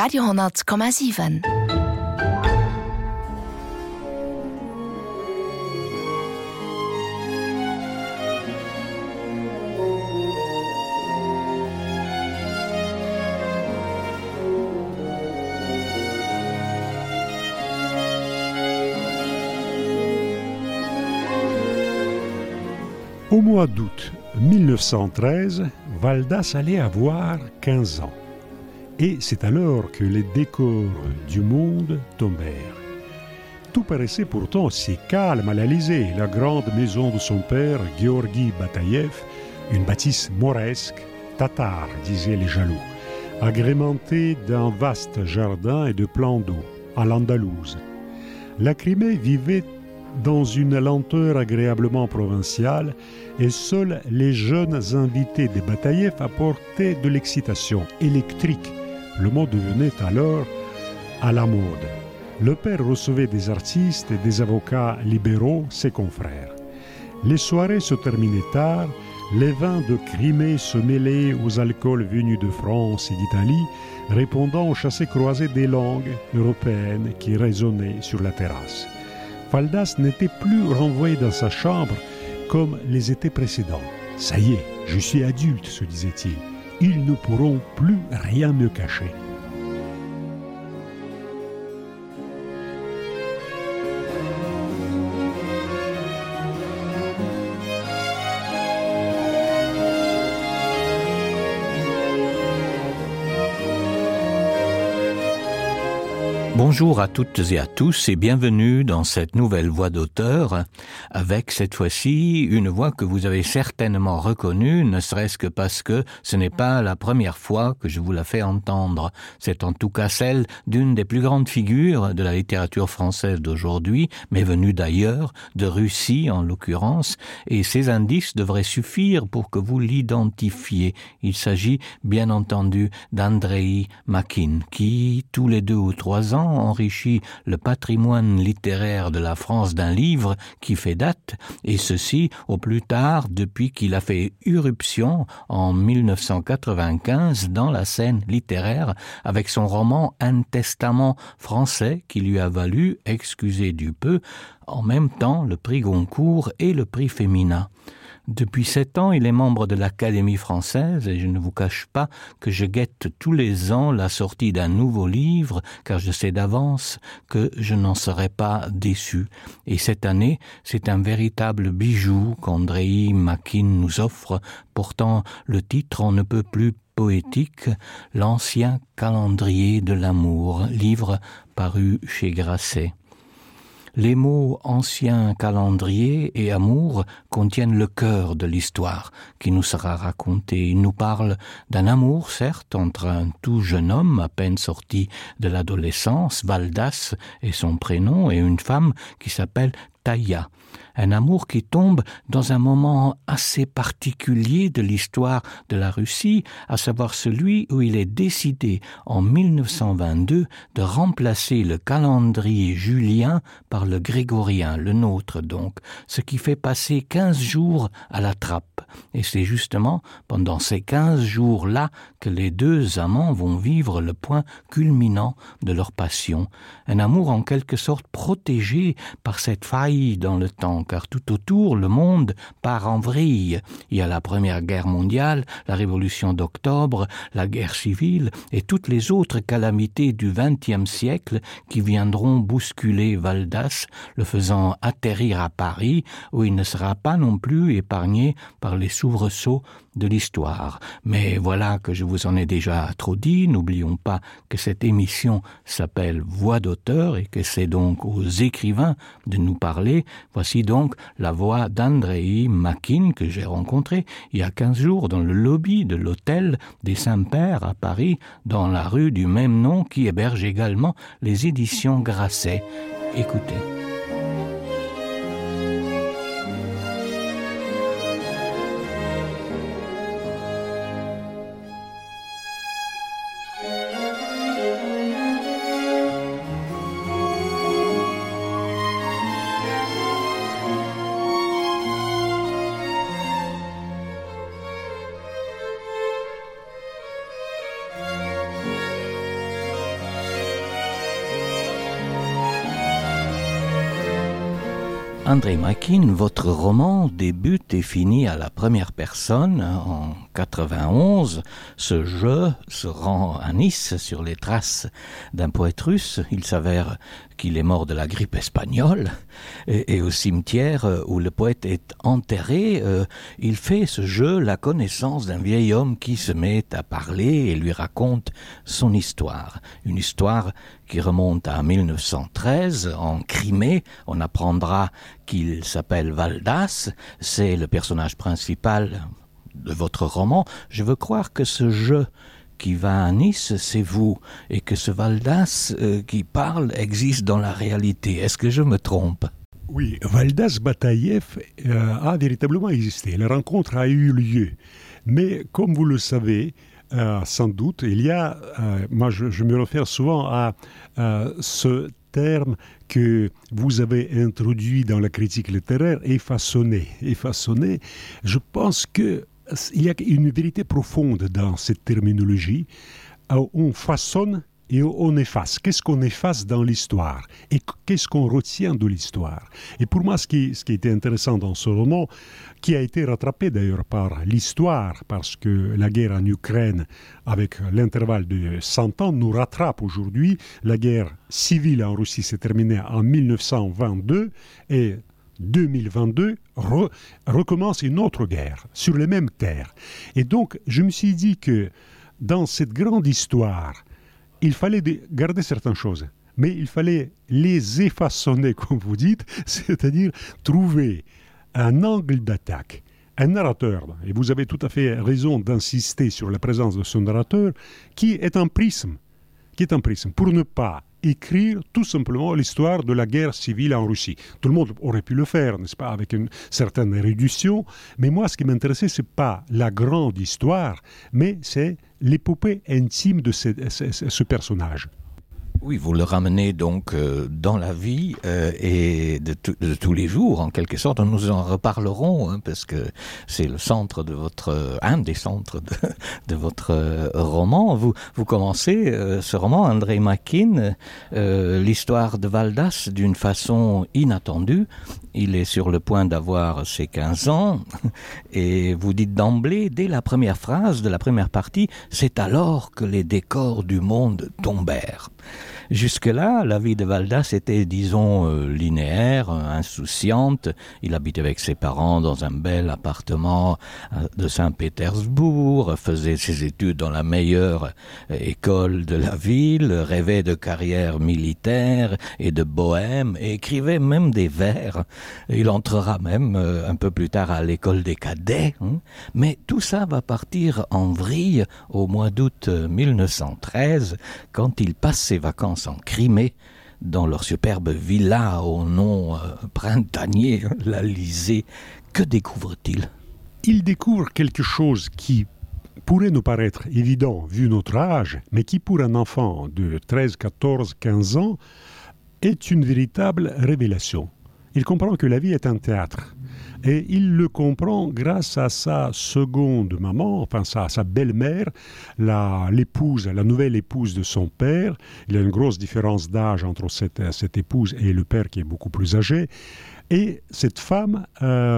Radio 10,7. Au mois d'août 1913, Valdas allait avoir 15 ans. Et c'est alors que les décors du monde tombèrent. Tout paraissait pourtant si calme à l'Élysée, la grande maison de son père, Georgi Bataïev, une bâtisse mauresque, tatare, disaient les jaloux, agrémentée d'un vaste jardin et de plans d'eau, à l'Andalouse. La Crimée vivait dans une lenteur agréablement provinciale et seuls les jeunes invités des Bataïev apportaient de l'excitation électrique. Le mot devenait alors à la mode. Le père recevait des artistes et des avocats libéraux, ses confrères. Les soirées se terminaient tard, les vins de Crimée se mêlaient aux alcools venus de France et d'Italie, répondant aux chassés-croisés des langues européennes qui résonnaient sur la terrasse. Valdas n'était plus renvoyé dans sa chambre comme les étés précédents. « Ça y est, je suis adulte », se disait-il. « Ils ne pourront plus rien me cacher. » Bonjour à toutes et à tous et bienvenue dans cette nouvelle voix d'auteur avec cette fois-ci une voix que vous avez certainement reconnue, ne serait-ce que parce que ce n'est pas la première fois que je vous la fais entendre. C'est en tout cas celle d'une des plus grandes figures de la littérature française d'aujourd'hui, mais venue d'ailleurs, de Russie en l'occurrence, et ces indices devraient suffire pour que vous l'identifiez. Il s'agit bien entendu d'Andreï Makine qui, tous les 2 ou 3 ans, enrichit le patrimoine littéraire de la France d'un livre qui fait date, et ceci au plus tard depuis qu'il a fait irruption en 1995 dans la scène littéraire avec son roman Un testament français qui lui a valu, excusez du peu, en même temps le prix Goncourt et le prix Femina. Depuis 7 ans, il est membre de l'Académie française et je ne vous cache pas que je guette tous les ans la sortie d'un nouveau livre car je sais d'avance que je n'en serai pas déçu. Et cette année, c'est un véritable bijou qu'Andreï Makine nous offre, portant le titre on ne peut plus poétique, L'Ancien calendrier de l'amour, livre paru chez Grasset. Les mots ancien calendrier et amour contiennent le cœur de l'histoire qui nous sera racontée. Il nous parle d'un amour, certes, entre un tout jeune homme à peine sorti de l'adolescence, Valdas est son prénom, et une femme qui s'appelle Taïa. Un amour qui tombe dans un moment assez particulier de l'histoire de la Russie, à savoir celui où il est décidé en 1922 de remplacer le calendrier julien par le grégorien, le nôtre donc, ce qui fait passer 15 jours à la trappe. Et c'est justement pendant ces 15 jours-là que les 2 amants vont vivre le point culminant de leur passion. Un amour en quelque sorte protégé par cette faille dans le temps, car tout autour, le monde part en vrille. Il y a la Première Guerre mondiale, la Révolution d'octobre, la guerre civile et toutes les autres calamités du XXe siècle qui viendront bousculer Valdas, le faisant atterrir à Paris, où il ne sera pas non plus épargné par les soubresauts de l'histoire. Mais voilà que je vous en ai déjà trop dit. N'oublions pas que cette émission s'appelle Voix d'auteur et que c'est donc aux écrivains de nous parler. Voici donc la voix d'Andreï Makine que j'ai rencontré il y a 15 jours dans le lobby de l'hôtel des Saints-Pères à Paris, dans la rue du même nom qui héberge également les éditions Grasset. Écoutez. André Makin, votre roman débute et finit à la première personne en 91. Ce jeu se rend à Nice sur les traces d'un poète russe. Il s'avère qu'il est mort de la grippe espagnole et au cimetière où le poète est enterré, il fait ce jeu la connaissance d'un vieil homme qui se met à parler et lui raconte son histoire. Une histoire qui remonte à 1913 en Crimée. On apprendra qu'il s'appelle Valdas, c'est le personnage principal de votre roman. Je veux croire que ce jeu qui va à Nice, c'est vous, et que ce Valdas qui parle existe dans la réalité. Est-ce que je me trompe ? Oui, Valdas Bataïev a véritablement existé. La rencontre a eu lieu. Mais comme vous le savez, sans doute, il y a, moi je me réfère souvent à ce terme que vous avez introduit dans la critique littéraire, effaçonné. Effaçonné, je pense que il y a une vérité profonde dans cette terminologie. On façonne et on efface. Qu'est-ce qu'on efface dans l'histoire ? Et qu'est-ce qu'on retient de l'histoire ? Et pour moi, ce qui était intéressant dans ce roman, qui a été rattrapé d'ailleurs par l'histoire, parce que la guerre en Ukraine, avec l'intervalle de 100 ans, nous rattrape aujourd'hui. La guerre civile en Russie s'est terminée en 1922 et 2022 recommence une autre guerre sur les mêmes terres. Et donc, je me suis dit que dans cette grande histoire, il fallait garder certaines choses, mais il fallait les effaçonner, comme vous dites, c'est-à-dire trouver un angle d'attaque, un narrateur, et vous avez tout à fait raison d'insister sur la présence de ce narrateur, qui est un prisme, pour ne pas écrire tout simplement l'histoire de la guerre civile en Russie. Tout le monde aurait pu le faire, n'est-ce pas, avec une certaine réduction, mais moi, ce qui m'intéressait, ce n'est pas la grande histoire, mais c'est l'épopée intime de ce personnage. Oui, vous le ramenez donc dans la vie et de tous les jours, en quelque sorte. Nous en reparlerons, parce que c'est le centre de un des centres de votre roman. Vous commencez ce roman, André Makin, l'histoire de Valdas d'une façon inattendue. Il est sur le point d'avoir ses 15 ans et vous dites d'emblée, dès la première phrase de la première partie, c'est alors que les décors du monde tombèrent. Jusque-là, la vie de Valdas était, disons, linéaire, insouciante. Il habitait avec ses parents dans un bel appartement de Saint-Pétersbourg, faisait ses études dans la meilleure école de la ville, rêvait de carrière militaire et de bohème, et écrivait même des vers. Il entrera même un peu plus tard à l'école des cadets. Mais tout ça va partir en vrille au mois d'août 1913, quand il passe ses vacances en Crimée, dans leur superbe villa au nom printanier, l'Alizé. Que découvre-t-il ? Il découvre quelque chose qui pourrait nous paraître évident vu notre âge, mais qui pour un enfant de 13, 14, 15 ans est une véritable révélation. Il comprend que la vie est un théâtre. Et il le comprend grâce à sa seconde maman, enfin sa belle-mère, la nouvelle épouse de son père. Il y a une grosse différence d'âge entre cette épouse et le père qui est beaucoup plus âgé. Et cette femme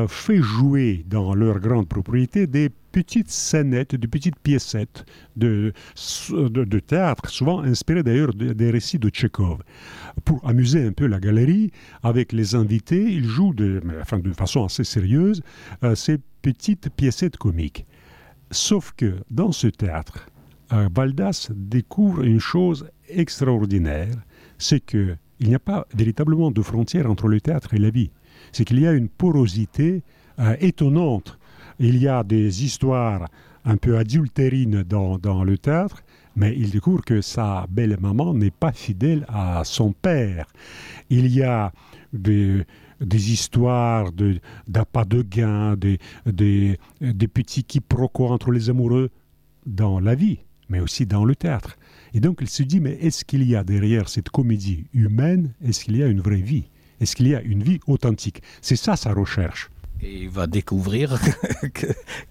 fait jouer dans leur grande propriété des petites scénettes, des petites piécettes de théâtre, souvent inspirées d'ailleurs des récits de Tchekhov. Pour amuser un peu la galerie, avec les invités, ils jouent de façon assez sérieuse ces petites piécettes comiques. Sauf que dans ce théâtre, Valdas découvre une chose extraordinaire, c'est qu'il n'y a pas véritablement de frontière entre le théâtre et la vie. C'est qu'il y a une porosité étonnante. Il y a des histoires un peu adultérines dans le théâtre, mais il découvre que sa belle-maman n'est pas fidèle à son père. Il y a des histoires d'appât de gain, des petits quiproquos entre les amoureux dans la vie, mais aussi dans le théâtre. Et donc il se dit, mais est-ce qu'il y a derrière cette comédie humaine, est-ce qu'il y a une vraie vie ? Est-ce qu'il y a une vie authentique ? C'est ça sa recherche. Et il va découvrir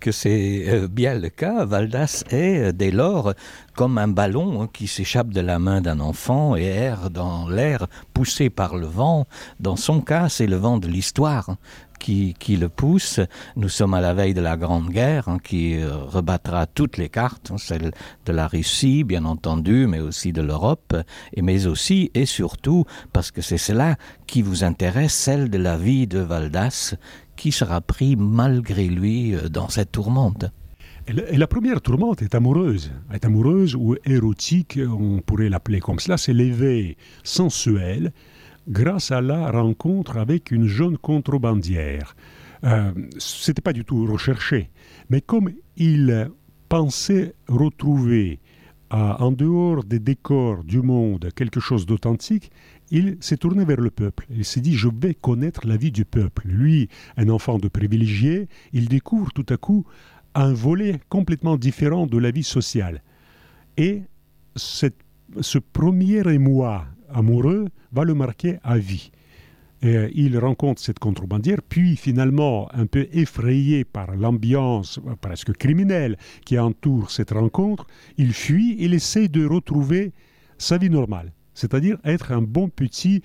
que c'est bien le cas. Valdas est, dès lors, comme un ballon qui s'échappe de la main d'un enfant et erre dans l'air, poussé par le vent. Dans son cas, c'est le vent de l'histoire qui le pousse. Nous sommes à la veille de la Grande Guerre qui rebattra toutes les cartes, celle de la Russie, bien entendu, mais aussi de l'Europe, mais aussi et surtout, parce que c'est cela qui vous intéresse, celle de la vie de Valdas, qui sera pris malgré lui dans cette tourmente. Et la première tourmente est amoureuse ou érotique, on pourrait l'appeler comme cela, c'est l'éveil sensuel grâce à la rencontre avec une jeune contrebandière. Ce n'était pas du tout recherché, mais comme il pensait retrouver en dehors des décors du monde quelque chose d'authentique, il s'est tourné vers le peuple. Il s'est dit, je vais connaître la vie du peuple. Lui, un enfant de privilégié, il découvre tout à coup un volet complètement différent de la vie sociale. Et ce premier émoi amoureux va le marquer à vie. Et il rencontre cette contrebandière, puis finalement, un peu effrayé par l'ambiance presque criminelle qui entoure cette rencontre, il fuit, il essaie de retrouver sa vie normale, c'est-à-dire être un bon petit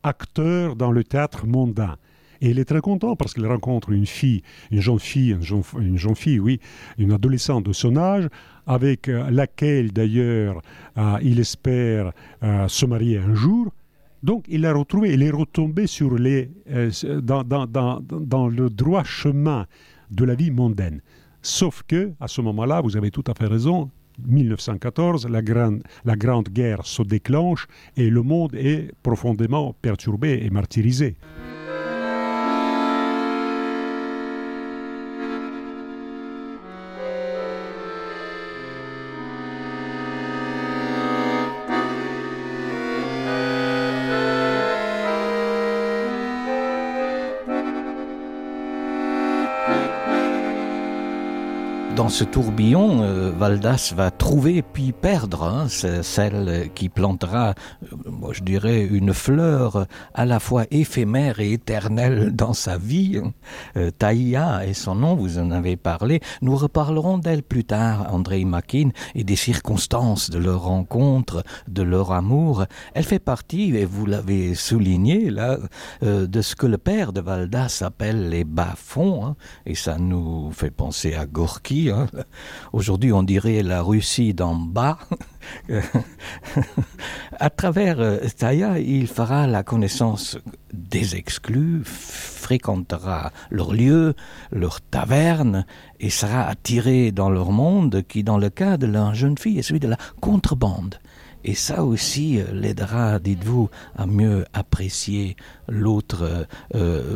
acteur dans le théâtre mondain. Et il est très content parce qu'il rencontre une jeune fille, une adolescente de son âge, avec laquelle d'ailleurs il espère se marier un jour. Donc il l'a retrouvé, il est retombé sur dans le droit chemin de la vie mondaine. Sauf que, à ce moment-là, vous avez tout à fait raison, 1914, la Grande Guerre se déclenche et le monde est profondément perturbé et martyrisé. Dans ce tourbillon, Valdas va trouver puis perdre celle qui plantera, je dirais, une fleur à la fois éphémère et éternelle dans sa vie. Taïa est son nom, vous en avez parlé. Nous reparlerons d'elle plus tard, Andrei Makin, et des circonstances de leur rencontre, de leur amour. Elle fait partie, et vous l'avez souligné là, de ce que le père de Valdas appelle les bas-fonds, et ça nous fait penser à Gorky. Aujourd'hui, on dirait la Russie d'en bas. À travers Taïa, il fera la connaissance des exclus, fréquentera leurs lieux, leurs tavernes, et sera attiré dans leur monde qui, dans le cas de la jeune fille, est celui de la contrebande. Et ça aussi l'aidera, dites-vous, à mieux apprécier l'autre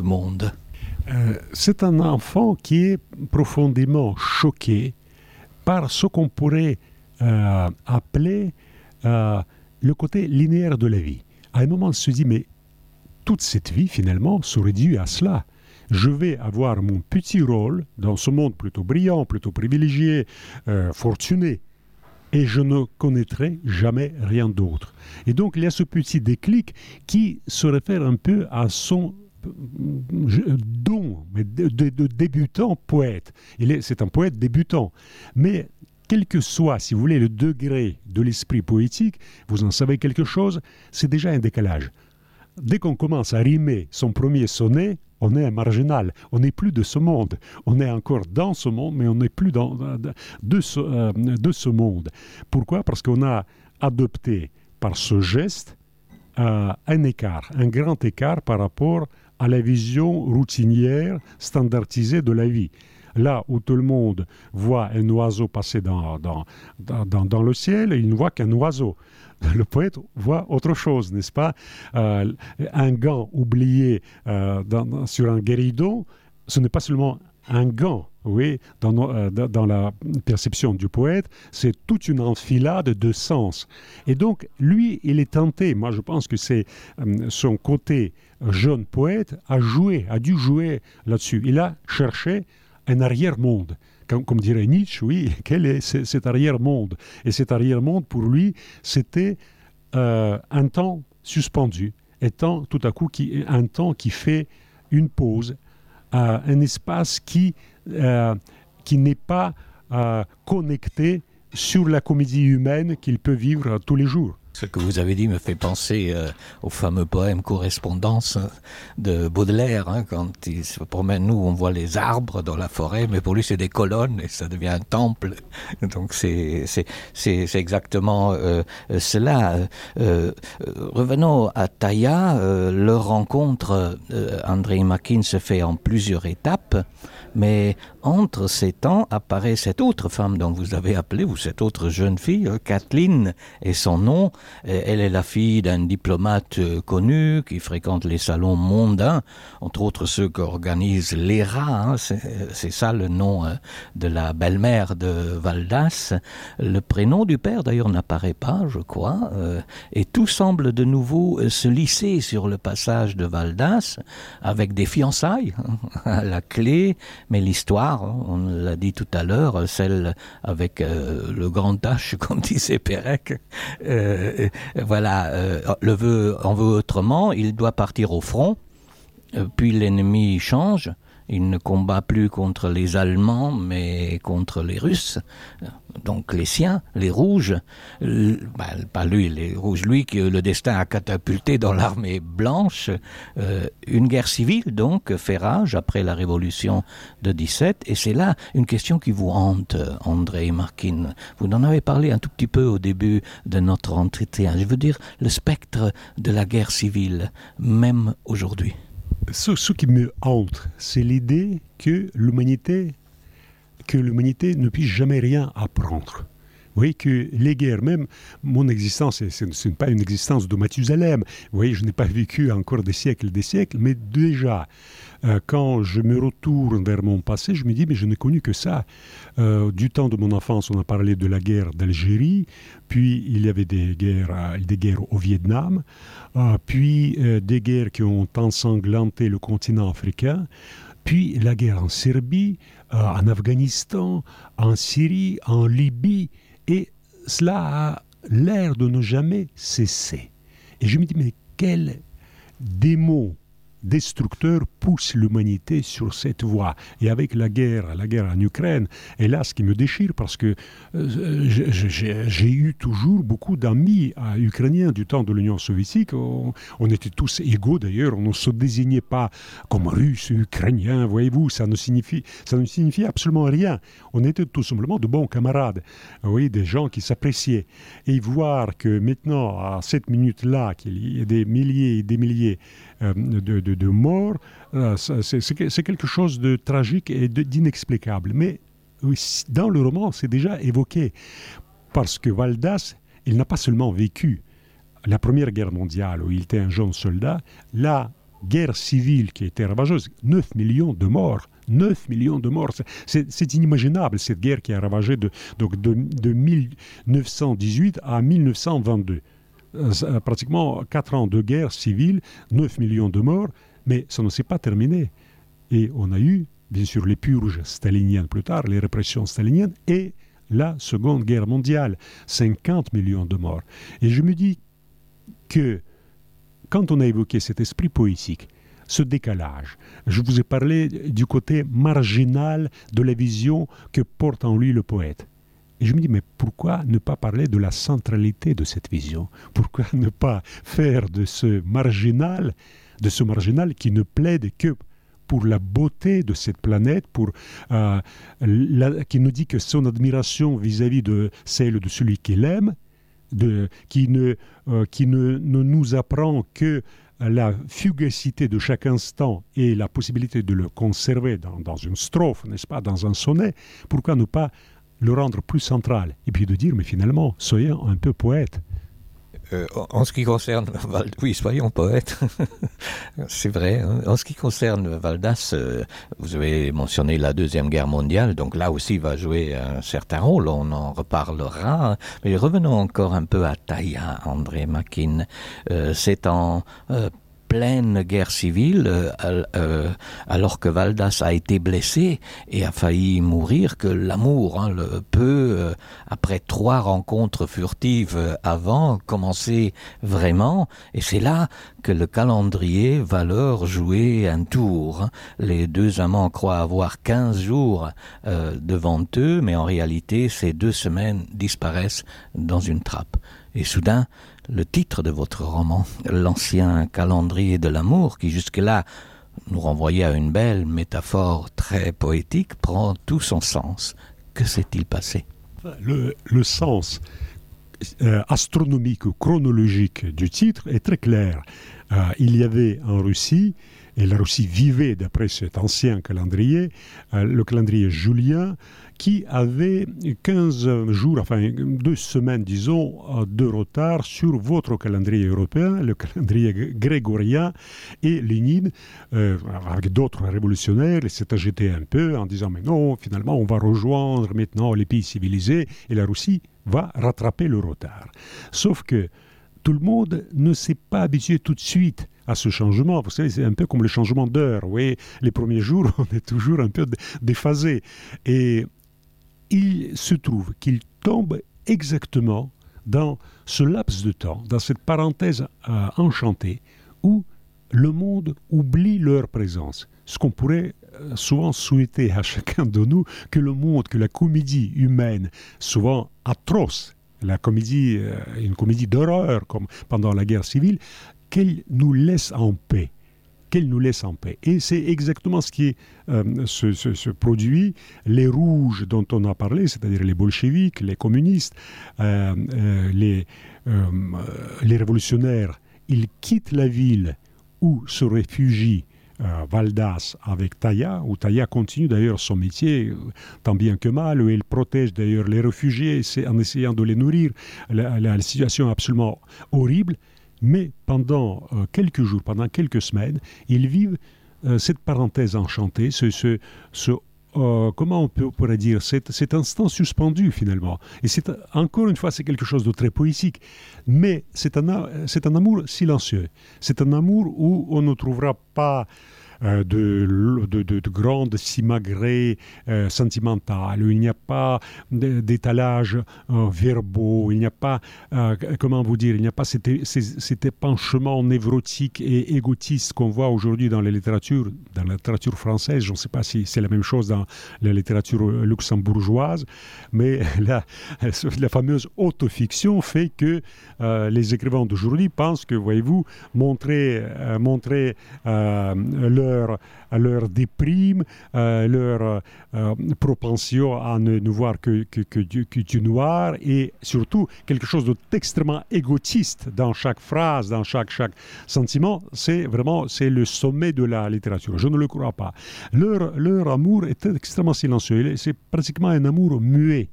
monde. C'est un enfant qui est profondément choqué par ce qu'on pourrait appeler le côté linéaire de la vie. À un moment, il se dit, mais toute cette vie, finalement, se réduit à cela. Je vais avoir mon petit rôle dans ce monde plutôt brillant, plutôt privilégié, fortuné, et je ne connaîtrai jamais rien d'autre. Et donc, il y a ce petit déclic qui se réfère un peu à son don de débutant poète. C'est un poète débutant. Mais quel que soit, si vous voulez, le degré de l'esprit poétique, vous en savez quelque chose, c'est déjà un décalage. Dès qu'on commence à rimer son premier sonnet, on est un marginal. On n'est plus de ce monde. On est encore dans ce monde, mais on n'est plus de ce monde. Pourquoi ? Parce qu'on a adopté par ce geste un grand écart par rapport à la vision routinière, standardisée de la vie. Là où tout le monde voit un oiseau passer dans le ciel, il ne voit qu'un oiseau. Le poète voit autre chose, n'est-ce pas ? Un gant oublié sur un guéridon, ce n'est pas seulement un gant. Oui, dans la perception du poète, c'est toute une enfilade de sens. Et donc, lui, il est tenté, moi je pense que c'est son côté jeune poète, a dû jouer là-dessus. Il a cherché un arrière-monde. Comme dirait Nietzsche, oui, quel est cet arrière-monde ? Et cet arrière-monde, pour lui, c'était un temps suspendu, étant tout à coup un temps qui fait une pause, un espace qui n'est pas connecté sur la comédie humaine qu'il peut vivre tous les jours. Ce que vous avez dit me fait penser au fameux poème Correspondance de Baudelaire, quand il se promène. Nous, on voit les arbres dans la forêt, mais pour lui, c'est des colonnes et ça devient un temple. Donc, c'est exactement cela. Revenons à Taïa. Leur rencontre, André Makin, se fait en plusieurs étapes, mais entre ces temps apparaît cette autre femme dont vous avez appelé, ou cette autre jeune fille, Kathleen, et son nom. Elle est la fille d'un diplomate connu qui fréquente les salons mondains, entre autres ceux qu'organise l'ERA, c'est ça le nom de la belle-mère de Valdas. Le prénom du père d'ailleurs n'apparaît pas, je crois, et tout semble de nouveau se lisser sur le passage de Valdas, avec des fiançailles à la clé, mais l'histoire, on l'a dit tout à l'heure, celle avec le grand H, comme disait Pérec, le vœu en veut autrement, il doit partir au front, puis l'ennemi change, il ne combat plus contre les Allemands, mais contre les Russes, donc les siens, les Rouges, pas lui, les Rouges, lui que le destin a catapulté dans l'armée blanche, une guerre civile donc fait rage après la révolution de 17, et c'est là une question qui vous hante, André Makin. Vous en avez parlé un tout petit peu au début de notre entretien, je veux dire le spectre de la guerre civile, même aujourd'hui. Ce qui me hante, c'est l'idée que l'humanité ne puisse jamais rien apprendre. Vous voyez que les guerres, même mon existence, ce n'est pas une existence de Mathusalem. Vous voyez, je n'ai pas vécu encore des siècles, mais déjà, quand je me retourne vers mon passé, je me dis, mais je n'ai connu que ça. Du temps de mon enfance, on a parlé de la guerre d'Algérie, puis il y avait des guerres au Vietnam, puis des guerres qui ont ensanglanté le continent africain, puis la guerre en Serbie, en Afghanistan, en Syrie, en Libye, et cela a l'air de ne jamais cesser. Et je me dis, mais quel démon destructeur pousse l'humanité sur cette voie. Et avec la guerre en Ukraine, et là, ce qui me déchire, parce que j'ai eu toujours beaucoup d'amis ukrainiens du temps de l'Union soviétique. On était tous égaux d'ailleurs, on ne se désignait pas comme Russes, Ukrainiens, voyez-vous, ça ne signifie absolument rien. On était tout simplement de bons camarades, oui, des gens qui s'appréciaient. Et voir que maintenant, à cette minute-là, qu'il y a des milliers et des milliers de morts, c'est quelque chose de tragique et d'inexplicable. Mais dans le roman, c'est déjà évoqué, parce que Valdas, il n'a pas seulement vécu la Première Guerre mondiale, où il était un jeune soldat, la guerre civile qui était ravageuse, 9 millions de morts. 9 millions de morts, c'est inimaginable, cette guerre qui a ravagé de 1918 à 1922. Pratiquement 4 ans de guerre civile, 9 millions de morts, mais ça ne s'est pas terminé. Et on a eu, bien sûr, les purges staliniennes plus tard, les répressions staliniennes, et la Seconde Guerre mondiale, 50 millions de morts. Et je me dis que, quand on a évoqué cet esprit poétique, ce décalage, je vous ai parlé du côté marginal de la vision que porte en lui le poète. Et je me dis, mais pourquoi ne pas parler de la centralité de cette vision? Pourquoi ne pas faire de ce marginal qui ne plaide que pour la beauté de cette planète, qui nous dit que son admiration vis-à-vis de celle de celui qu'il aime, qui ne nous apprend que la fugacité de chaque instant et la possibilité de le conserver dans une strophe, n'est-ce pas, dans un sonnet, pourquoi ne pas le rendre plus central, et puis de dire, mais finalement, soyons un peu poètes. En ce qui concerne oui, soyons poètes, c'est vrai. Hein. En ce qui concerne Valdas, vous avez mentionné la Deuxième Guerre mondiale, donc là aussi va jouer un certain rôle, on en reparlera. Mais revenons encore un peu à Taïa, André Makin. C'est en pleine guerre civile, alors que Valdas a été blessé et a failli mourir, que l'amour peut, après 3 rencontres furtives avant, commencer vraiment. Et c'est là que le calendrier va leur jouer un tour. Les 2 amants croient avoir 15 jours devant eux, mais en réalité, ces 2 semaines disparaissent dans une trappe. Et soudain, le titre de votre roman, L'ancien calendrier de l'amour, qui jusque-là nous renvoyait à une belle métaphore très poétique, prend tout son sens. Que s'est-il passé ? Le sens astronomique ou chronologique du titre est très clair. Il y avait en Russie, et la Russie vivait d'après cet ancien calendrier, le calendrier julien, qui avait 15 jours, enfin 2 semaines, disons, de retard sur votre calendrier européen, le calendrier grégorien, et Lénine, avec d'autres révolutionnaires, s'est agité un peu en disant « Mais non, finalement, on va rejoindre maintenant les pays civilisés, et la Russie va rattraper le retard. » Sauf que tout le monde ne s'est pas habitué tout de suite à ce changement. Vous savez, c'est un peu comme le changement d'heure. Oui, les premiers jours, on est toujours un peu déphasé. Et il se trouve qu'il tombe exactement dans ce laps de temps, dans cette parenthèse enchantée, où le monde oublie leur présence. Ce qu'on pourrait souvent souhaiter à chacun de nous, que le monde, que la comédie humaine, souvent atroce, la comédie, une comédie d'horreur comme pendant la guerre civile, qu'elle nous laisse en paix. Qu'elle nous laisse en paix. Et c'est exactement ce qui se produit. Les rouges dont on a parlé, c'est-à-dire les bolcheviks, les communistes, les révolutionnaires, ils quittent la ville où se réfugient Valdas avec Taya, où Taya continue d'ailleurs son métier tant bien que mal, où elle protège d'ailleurs les réfugiés en essayant de les nourrir. La situation est absolument horrible, mais pendant quelques jours, pendant quelques semaines, ils vivent cette parenthèse enchantée, comment on pourrait dire, cet instant suspendu finalement. Et encore une fois, c'est quelque chose de très poétique, mais c'est un amour silencieux. C'est un amour où on ne trouvera pas de grandes simagrées sentimentales, où il n'y a pas d'étalage verbaux, il n'y a pas, comment vous dire, il n'y a pas cet épanchement névrotique et égotiste qu'on voit aujourd'hui dans la littérature française. Je ne sais pas si c'est la même chose dans la littérature luxembourgeoise, mais la fameuse autofiction fait que les écrivains d'aujourd'hui pensent que, voyez-vous, montrer leur déprime, leur propension à ne voir que du noir, et surtout quelque chose d'extrêmement égotiste dans chaque phrase, dans chaque sentiment. C'est le sommet de la littérature. Je ne le crois pas. Leur amour est extrêmement silencieux. C'est pratiquement un amour muet.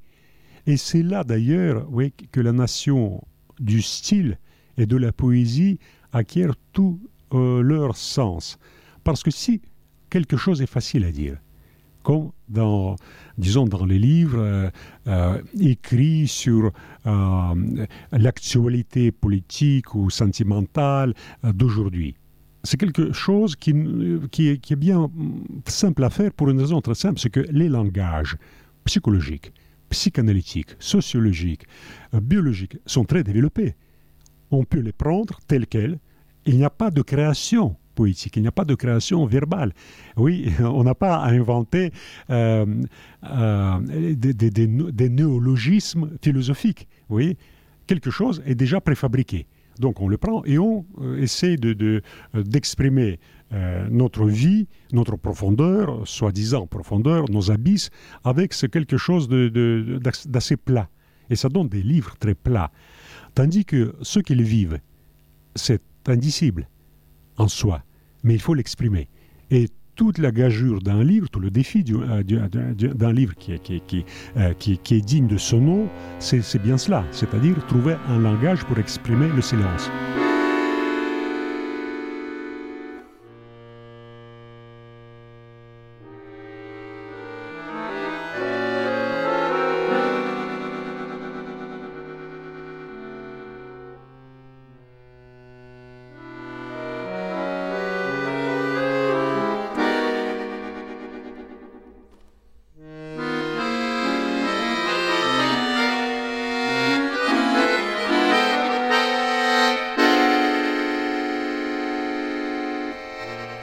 Et c'est là d'ailleurs, oui, que la nation du style et de la poésie acquiert tout leur sens. Parce que si quelque chose est facile à dire, comme dans les livres écrits sur l'actualité politique ou sentimentale d'aujourd'hui, c'est quelque chose qui est bien simple à faire pour une raison très simple, c'est que les langages psychologiques, psychanalytiques, sociologiques, biologiques sont très développés. On peut les prendre tels quels. Il n'y a pas de création poétique, il n'y a pas de création verbale. Oui, on n'a pas à inventer des néologismes philosophiques. Oui, quelque chose est déjà préfabriqué. Donc on le prend et on essaie d'exprimer notre vie, notre profondeur, soi-disant profondeur, nos abysses, avec quelque chose d'assez plat. Et ça donne des livres très plats. Tandis que ce qu'ils vivent, c'est indicible en soi, mais il faut l'exprimer. Et toute la gageure d'un livre, tout le défi d'un livre qui est digne de son nom, c'est bien cela, c'est-à-dire trouver un langage pour exprimer le silence.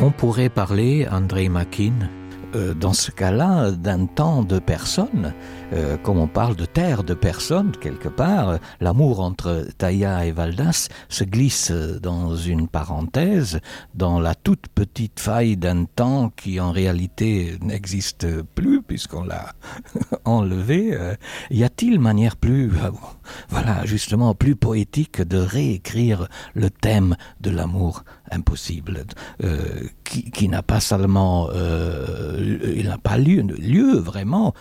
On pourrait parler, André Makin, dans ce cas-là, d'un temps de personnes, comme on parle de terre de personnes, quelque part, l'amour entre Taïa et Valdas se glisse dans une parenthèse, dans la toute petite faille d'un temps qui en réalité n'existe plus, puisqu'on l'a enlevé. Y a-t-il manière plus, voilà, justement, plus poétique de réécrire le thème de l'amour impossible, qui n'a pas seulement il n'a pas lieu vraiment,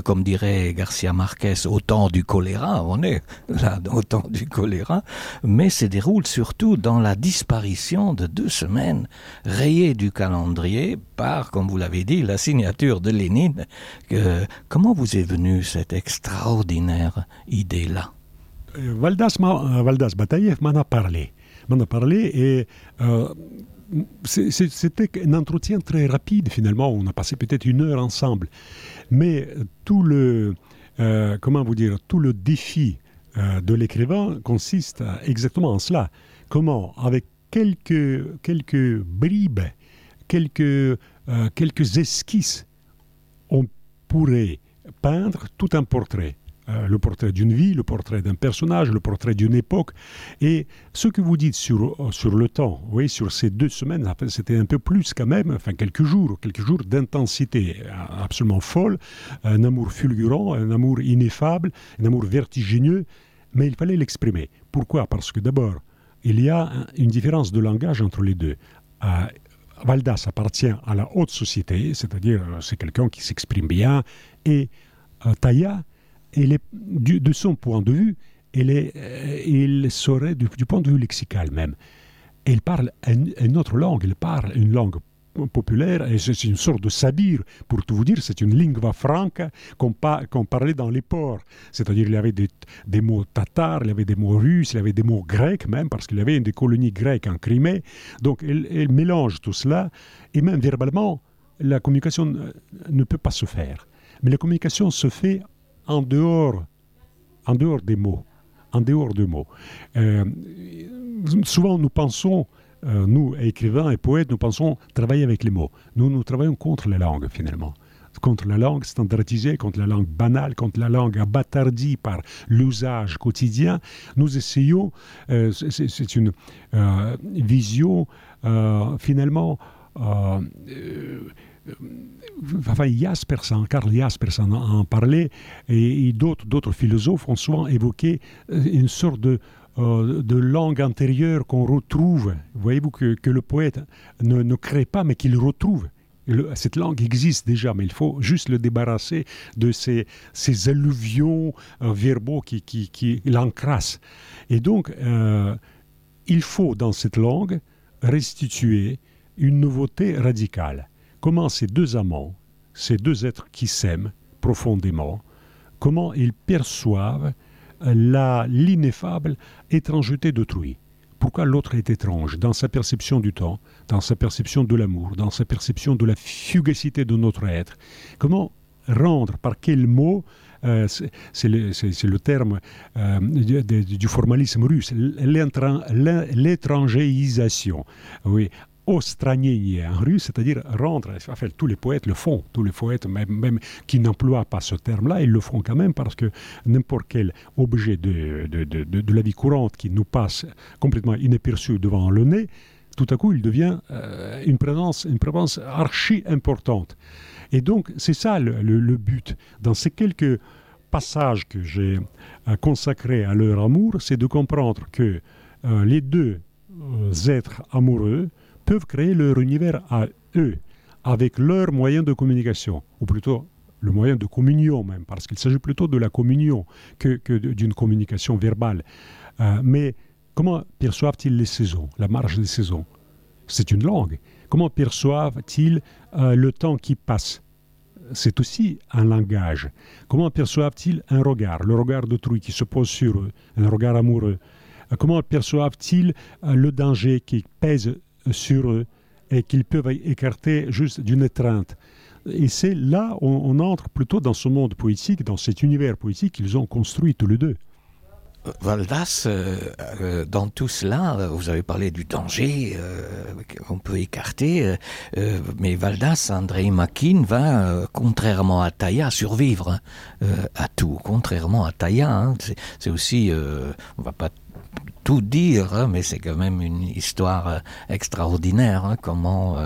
comme dirait Garcia Marquez, au temps du choléra, on est là au temps du choléra, mais se déroule surtout dans la disparition de 2 semaines rayées du calendrier par, comme vous l'avez dit, la signature de Lénine. Comment vous est venue cette extraordinaire idée-là? Valdas Bataïev m'en a parlé et c'était un entretien très rapide finalement, on a passé peut-être 1 heure ensemble, mais tout le défi de l'écrivain consiste exactement en cela. Comment, avec quelques bribes, quelques esquisses, on pourrait peindre tout un portrait. Le portrait d'une vie, le portrait d'un personnage, le portrait d'une époque. Et ce que vous dites sur le temps, oui, sur ces 2 semaines, c'était un peu plus quand même, enfin quelques jours d'intensité absolument folle, un amour fulgurant, un amour ineffable, un amour vertigineux, mais il fallait l'exprimer. Pourquoi ? Parce que d'abord, il y a une différence de langage entre les deux. Valdas appartient à la haute société, c'est-à-dire c'est quelqu'un qui s'exprime bien, et Taïa, de son point de vue, il serait du point de vue lexical même. Il parle une autre langue, il parle une langue populaire, et c'est une sorte de sabir, pour tout vous dire, c'est une lingua franca qu'on parlait dans les ports. C'est-à-dire il y avait des mots tatars, il y avait des mots russes, il y avait des mots grecs même, parce qu'il y avait des colonies grecques en Crimée. Donc il mélange tout cela, et même verbalement, la communication ne peut pas se faire. Mais la communication se fait en dehors des mots. Souvent, nous pensons, nous, écrivains et poètes, nous pensons travailler avec les mots. Nous travaillons contre la langue, finalement. Contre la langue standardisée, contre la langue banale, contre la langue abattardie par l'usage quotidien. Nous essayons, c'est une vision, finalement, Karl Jasperson en parlait, et d'autres philosophes ont souvent évoqué une sorte de langue antérieure qu'on retrouve. Voyez-vous que le poète ne crée pas, mais qu'il retrouve. Cette langue existe déjà, mais il faut juste le débarrasser de ces alluvions verbaux qui l'encrassent. Et donc, il faut dans cette langue restituer une nouveauté radicale. Comment ces 2 amants, ces 2 êtres qui s'aiment profondément, comment ils perçoivent l'ineffable étrangeté d'autrui. Pourquoi l'autre est étrange dans sa perception du temps, dans sa perception de l'amour, dans sa perception de la fugacité de notre être. Comment rendre, par quel mot, c'est le terme du formalisme russe, l'étrangéisation. Oui. Ostranение en russe, c'est-à-dire rendre, enfin, tous les poètes le font, tous les poètes même qui n'emploient pas ce terme-là, ils le font quand même parce que n'importe quel objet de la vie courante qui nous passe complètement inaperçu devant le nez, tout à coup il devient une présence archi importante. Et donc c'est ça le but. Dans ces quelques passages que j'ai consacrés à leur amour, c'est de comprendre que les 2 êtres amoureux peuvent créer leur univers à eux, avec leurs moyens de communication, ou plutôt le moyen de communion même, parce qu'il s'agit plutôt de la communion que d'une communication verbale. Mais comment perçoivent-ils les saisons, la marche des saisons ? C'est une langue. Comment perçoivent-ils le temps qui passe ? C'est aussi un langage. Comment perçoivent-ils un regard, le regard d'autrui qui se pose sur eux, un regard amoureux ? Comment perçoivent-ils le danger qui pèse sur eux et qu'ils peuvent écarter juste d'une étreinte. Et c'est là on entre plutôt dans ce monde poétique, dans cet univers poétique qu'ils ont construit tous les 2. Valdas, dans tout cela, vous avez parlé du danger qu'on peut écarter, mais Valdas, Andrei Makin, va, contrairement à Taïa, survivre à tout. Contrairement à Taïa, hein, c'est aussi, on va pas tout dire, hein, mais c'est quand même une histoire extraordinaire, hein, comment,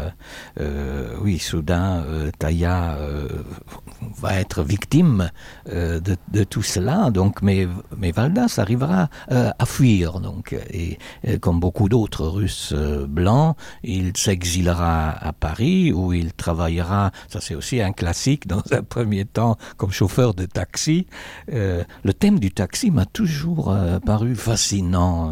oui, soudain, Taïa va être victime de tout cela, donc, mais Valdas arrivera à fuir, donc, et comme beaucoup d'autres Russes blancs, il s'exilera à Paris, où il travaillera, ça c'est aussi un classique, dans un premier temps, comme chauffeur de taxi. Le thème du taxi m'a toujours paru fascinant.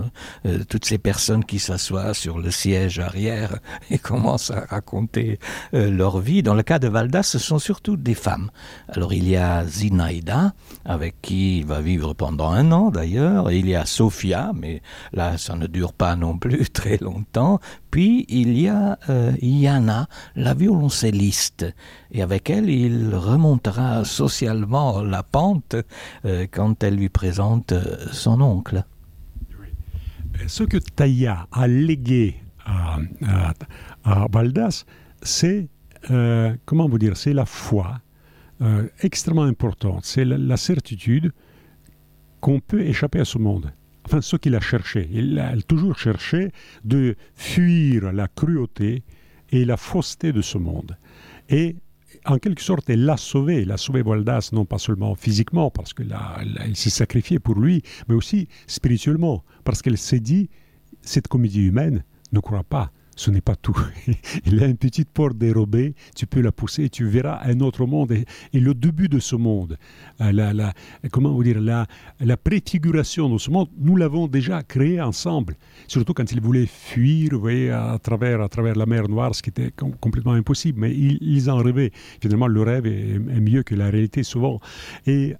Toutes ces personnes qui s'assoient sur le siège arrière et commencent à raconter leur vie. Dans le cas de Valdas, ce sont surtout des femmes. Alors il y a Zinaïda, avec qui il va vivre pendant 1 an d'ailleurs, et il y a Sofia, mais là ça ne dure pas non plus très longtemps. Puis il y a Yana, la violoncelliste, et avec elle il remontera socialement la pente quand elle lui présente son oncle. Ce que Taïa a légué à Valdas, c'est, comment vous dire, c'est la foi extrêmement importante. C'est la certitude qu'on peut échapper à ce monde. Enfin, ce qu'il a cherché. Il a toujours cherché de fuir la cruauté et la fausseté de ce monde. Et en quelque sorte, elle l'a sauvé. Elle a sauvé Valdas, non pas seulement physiquement, parce qu'il s'est sacrifié pour lui, mais aussi spirituellement, parce qu'elle s'est dit, cette comédie humaine, ne crois pas, ce n'est pas tout. Il y a une petite porte dérobée, tu peux la pousser et tu verras un autre monde. Et le début de ce monde, comment vous dire, la préfiguration de ce monde, nous l'avons déjà créé ensemble. Surtout quand ils voulaient fuir, vous voyez, à travers la mer Noire, ce qui était complètement impossible. Mais ils en rêvaient. Finalement, le rêve est mieux que la réalité souvent. Et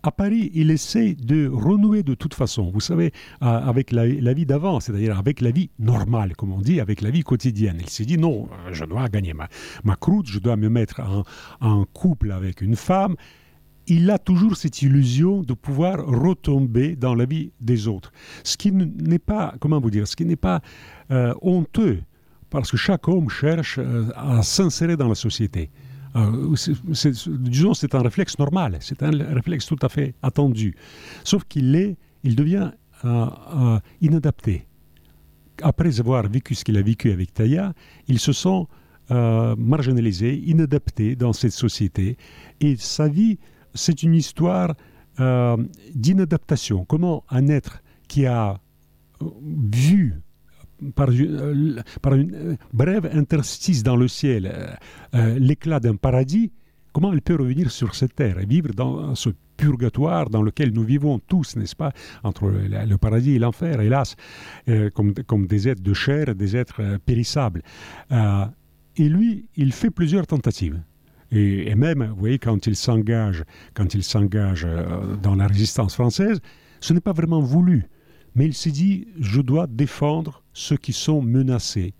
à Paris, il essaie de renouer de toute façon, vous savez, avec la vie d'avant, c'est-à-dire avec la vie normale, comme on dit, avec la vie quotidienne. Il s'est dit, non, je dois gagner ma croûte, je dois me mettre en couple avec une femme. Il a toujours cette illusion de pouvoir retomber dans la vie des autres. Ce qui n'est pas, comment vous dire, ce qui n'est pas honteux, parce que chaque homme cherche à s'insérer dans la société. Disons, c'est un réflexe normal, c'est un réflexe tout à fait attendu. Sauf qu'il devient inadapté. Après avoir vécu ce qu'il a vécu avec Taïa, il se sent marginalisé, inadapté dans cette société. Et sa vie, c'est une histoire d'inadaptation. Comment un être qui a vu par une brève interstice dans le ciel, l'éclat d'un paradis, comment elle peut revenir sur cette terre et vivre dans ce purgatoire dans lequel nous vivons tous, n'est-ce pas, entre le paradis et l'enfer, hélas, comme des êtres de chair, des êtres périssables. Et lui, il fait plusieurs tentatives. Et même, vous voyez, quand il s'engage dans la résistance française, ce n'est pas vraiment voulu. Mais il s'est dit, je dois défendre ceux qui sont menacés.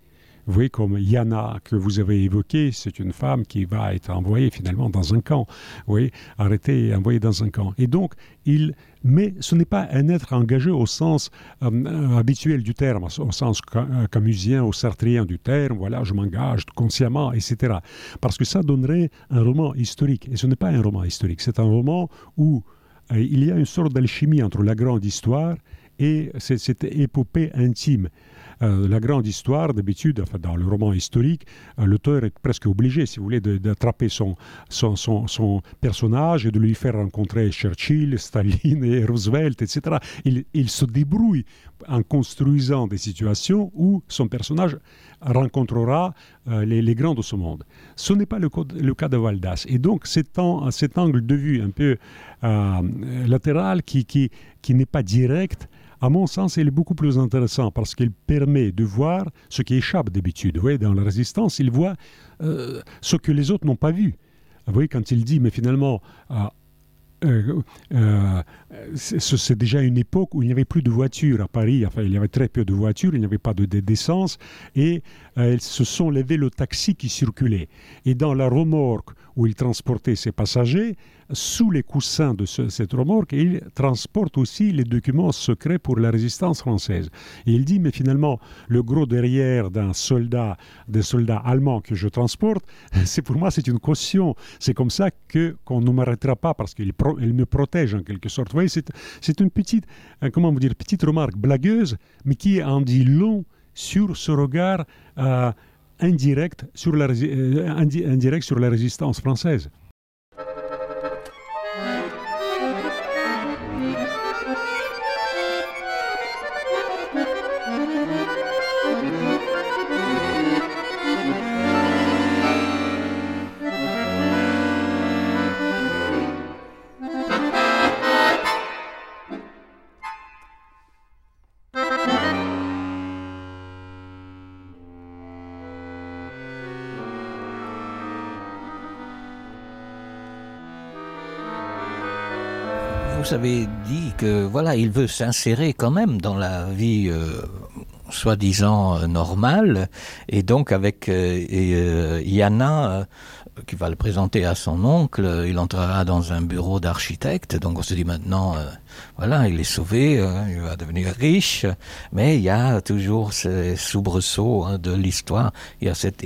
Vous voyez, comme Yana, que vous avez évoqué, c'est une femme qui va être envoyée finalement dans un camp. Vous voyez, arrêtée et envoyée dans un camp. Et donc, mais ce n'est pas un être engagé au sens habituel du terme, au sens camusien, au sartrien du terme, voilà, je m'engage consciemment, etc. Parce que ça donnerait un roman historique. Et ce n'est pas un roman historique, c'est un roman où il y a une sorte d'alchimie entre la grande histoire et cette épopée intime. La grande histoire, d'habitude, enfin, dans le roman historique, l'auteur est presque obligé, si vous voulez, d'attraper son personnage et de lui faire rencontrer Churchill, Staline et Roosevelt, etc. Il se débrouille en construisant des situations où son personnage rencontrera les grands de ce monde. Ce n'est pas le cas de Valdas. Et donc, cet angle de vue un peu latéral qui n'est pas direct, à mon sens, il est beaucoup plus intéressant parce qu'il permet de voir ce qui échappe d'habitude. Vous voyez, dans la résistance, il voit ce que les autres n'ont pas vu. Vous voyez, quand il dit, mais finalement, c'est déjà une époque où il n'y avait plus de voitures à Paris. Enfin, il y avait très peu de voitures, il n'y avait pas d'essence, et ce sont les vélos taxis qui circulaient. Et dans la remorque où il transportait ses passagers, sous les coussins de cette remorque, il transporte aussi les documents secrets pour la résistance française. Et il dit, mais finalement, le gros derrière des soldats allemands que je transporte, pour moi, c'est une caution. C'est comme ça qu'on ne m'arrêtera pas, parce qu'il me protège en quelque sorte. Vous voyez, c'est une petite remarque blagueuse, mais qui en dit long sur ce regard indirect sur la résistance française. Vous avez dit que voilà, il veut s'insérer quand même dans la vie soi-disant normale, et donc avec Yana qui va le présenter à son oncle, il entrera dans un bureau d'architecte, donc on se dit maintenant, voilà, il est sauvé, il va devenir riche, mais il y a toujours ces soubresauts de l'histoire, il y a cette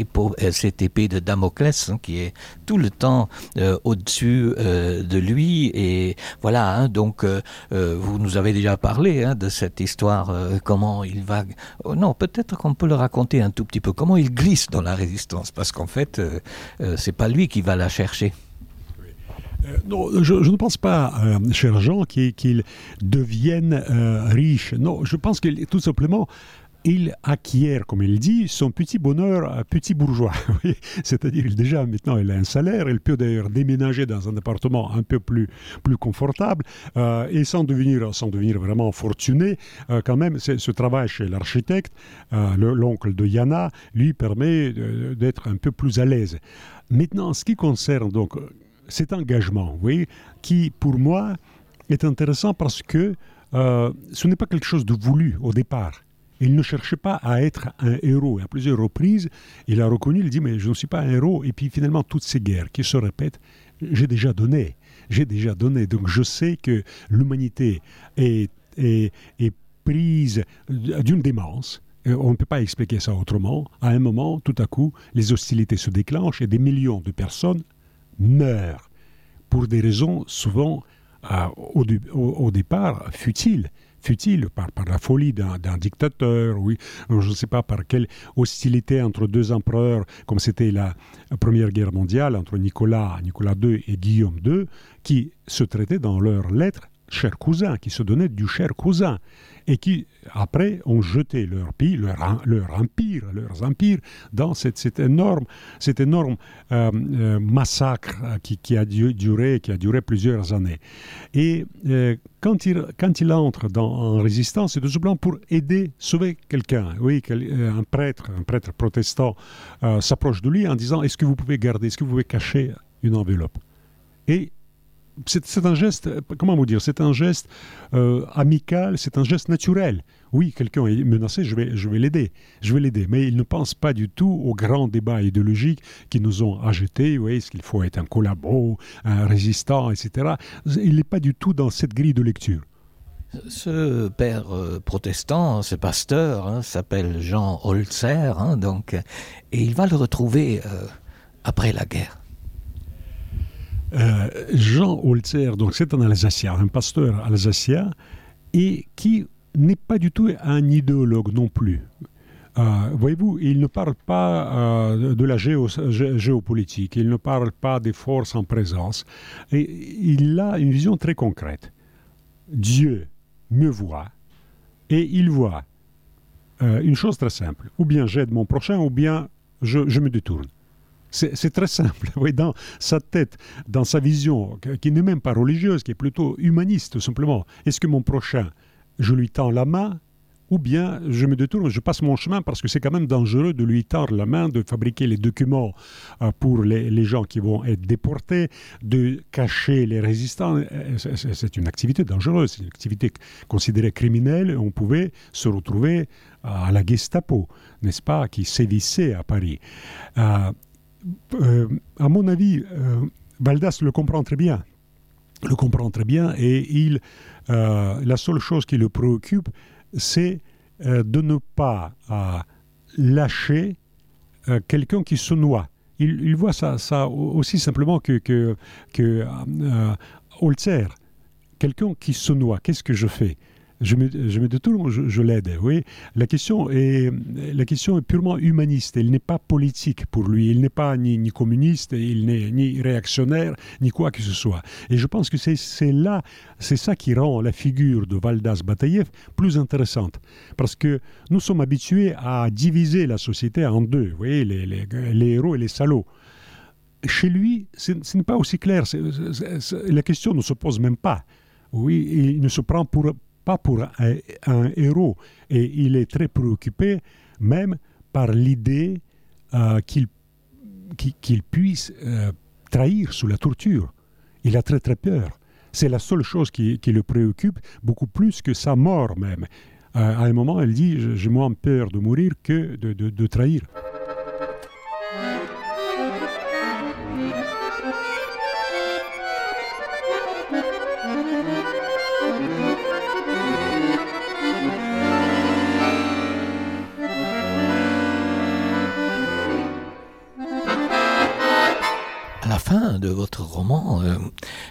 épée de Damoclès qui est tout le temps au-dessus de lui, et voilà, donc vous nous avez déjà parlé de cette histoire, comment il va... non, peut-être qu'on peut le raconter un tout petit peu, comment il glisse dans la résistance, parce qu'en fait, c'est pas lui qui va la chercher. Non, je ne pense pas, cher Jean, qu'il devienne riche. Non, je pense que tout simplement, il acquiert, comme il dit, son petit bonheur petit bourgeois. C'est-à-dire, déjà, maintenant, il a un salaire, il peut d'ailleurs déménager dans un appartement un peu plus confortable, et sans devenir vraiment fortuné, quand même, ce travail chez l'architecte, l'oncle de Yana, lui permet d'être un peu plus à l'aise. Maintenant, en ce qui concerne donc cet engagement, vous voyez, qui, pour moi, est intéressant parce que ce n'est pas quelque chose de voulu au départ. Il ne cherchait pas à être un héros. Et à plusieurs reprises, il a reconnu, il dit, mais je ne suis pas un héros. Et puis finalement, toutes ces guerres qui se répètent, j'ai déjà donné. Donc je sais que l'humanité est prise d'une démence. On ne peut pas expliquer ça autrement. À un moment, tout à coup, les hostilités se déclenchent et des millions de personnes meurent pour des raisons souvent, au départ, futiles par la folie d'un dictateur, oui, je ne sais pas par quelle hostilité entre deux empereurs, comme c'était la Première Guerre mondiale, entre Nicolas II et Guillaume II, qui se traitaient dans leurs lettres cher cousin, qui se donnaient du cher cousin, et qui, après, ont jeté leurs empires dans cet énorme massacre qui a duré plusieurs années. Et quand il entre en résistance, c'est tout simplement pour sauver quelqu'un. Oui, un prêtre protestant s'approche de lui en disant « Est-ce que vous pouvez cacher une enveloppe ?» Et c'est un geste, comment vous dire, c'est un geste amical, c'est un geste naturel. Oui, quelqu'un est menacé, je vais l'aider, mais il ne pense pas du tout aux grands débats idéologiques qui nous ont agités, oui, est-ce qu'il faut être un collabo, un résistant, etc. Il n'est pas du tout dans cette grille de lecture. Ce père protestant, ce pasteur, s'appelle Jean Holzer, donc, et il va le retrouver après la guerre. Jean Holzer, donc c'est un Alsacien, un pasteur alsacien, et qui n'est pas du tout un idéologue non plus. Voyez-vous, il ne parle pas de la géopolitique, il ne parle pas des forces en présence, et il a une vision très concrète. Dieu me voit, et il voit une chose très simple, ou bien j'aide mon prochain, ou bien je me détourne. C'est très simple. Oui, dans sa tête, dans sa vision, qui n'est même pas religieuse, qui est plutôt humaniste, tout simplement. Est-ce que mon prochain, je lui tends la main, ou bien je me détourne, je passe mon chemin, parce que c'est quand même dangereux de lui tendre la main, de fabriquer les documents pour les gens qui vont être déportés, de cacher les résistants. C'est une activité dangereuse, c'est une activité considérée criminelle. On pouvait se retrouver à la Gestapo, n'est-ce pas, qui sévissait à Paris. À mon avis, Valdas le comprend très bien. le comprend très bien et la seule chose qui le préoccupe, c'est de ne pas lâcher quelqu'un qui se noie. Il voit ça aussi simplement que Holzer, quelqu'un qui se noie. Qu'est-ce que je fais ? Je me détourne, je l'aide. Oui. La question est purement humaniste. Elle n'est pas politique pour lui. Il n'est pas ni communiste, il n'est ni réactionnaire, ni quoi que ce soit. Et je pense que c'est ça qui rend la figure de Valdas Bataïev plus intéressante. Parce que nous sommes habitués à diviser la société en deux. Vous voyez, les héros et les salauds. Chez lui, ce n'est pas aussi clair. La question ne se pose même pas. Oui, il ne se prend pas pour un héros. Et il est très préoccupé même par l'idée qu'il puisse trahir sous la torture. Il a très très peur. C'est la seule chose qui le préoccupe, beaucoup plus que sa mort même. À un moment, elle dit « J'ai moins peur de mourir que de trahir ». À la fin de votre roman,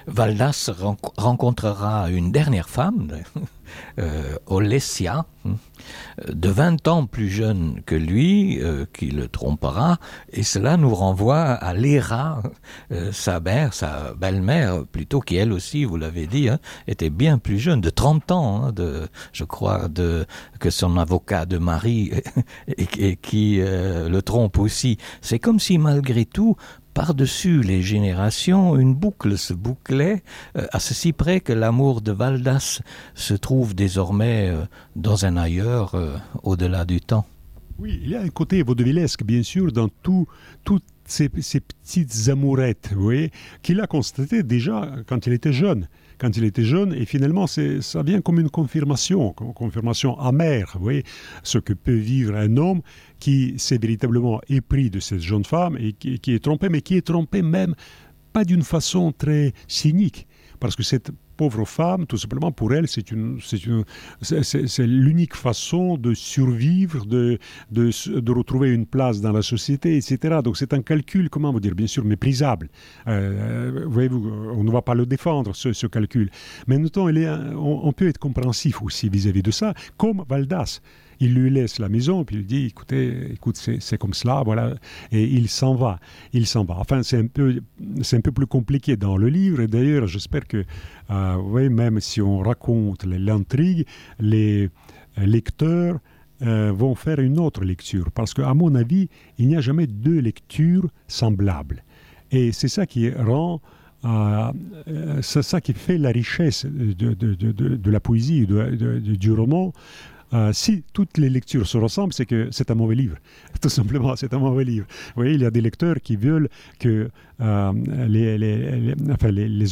Valdas rencontrera une dernière femme, Olesya, de 20 ans plus jeune que lui, qui le trompera, et cela nous renvoie à Léra, sa belle-mère, plutôt, qui elle aussi, vous l'avez dit, était bien plus jeune, de 30 ans, je crois, que son avocat de mari, et qui le trompe aussi. C'est comme si, malgré tout, par-dessus les générations, une boucle se bouclait, à ceci près que l'amour de Valdas se trouve désormais dans un ailleurs, au-delà du temps. Oui, il y a un côté vaudevillesque, bien sûr, dans toutes ces petites amourettes, vous voyez, qu'il a constaté déjà quand il était jeune. Et finalement, ça vient comme une confirmation amère, vous voyez, ce que peut vivre un homme qui s'est véritablement épris de cette jeune femme et qui est trompé, mais qui est trompé même pas d'une façon très cynique, parce que cette pauvre femme, tout simplement, pour elle, c'est l'unique façon de survivre, de retrouver une place dans la société, etc. Donc c'est un calcul, comment vous dire, bien sûr méprisable. Voyez-vous, on ne va pas le défendre, ce calcul. Mais en même temps, on peut être compréhensif aussi vis-à-vis de ça, comme Valdas. Il lui laisse la maison, puis il dit, écoute, c'est comme cela, voilà, et il s'en va. Enfin, c'est un peu plus compliqué dans le livre, et d'ailleurs, j'espère que, même si on raconte l'intrigue, les lecteurs vont faire une autre lecture, parce qu'à mon avis, il n'y a jamais deux lectures semblables. Et c'est ça qui rend... c'est ça qui fait la richesse de la poésie, du roman. Si toutes les lectures se ressemblent, c'est que c'est un mauvais livre. Tout simplement, c'est un mauvais livre. Vous voyez, il y a des lecteurs qui veulent que les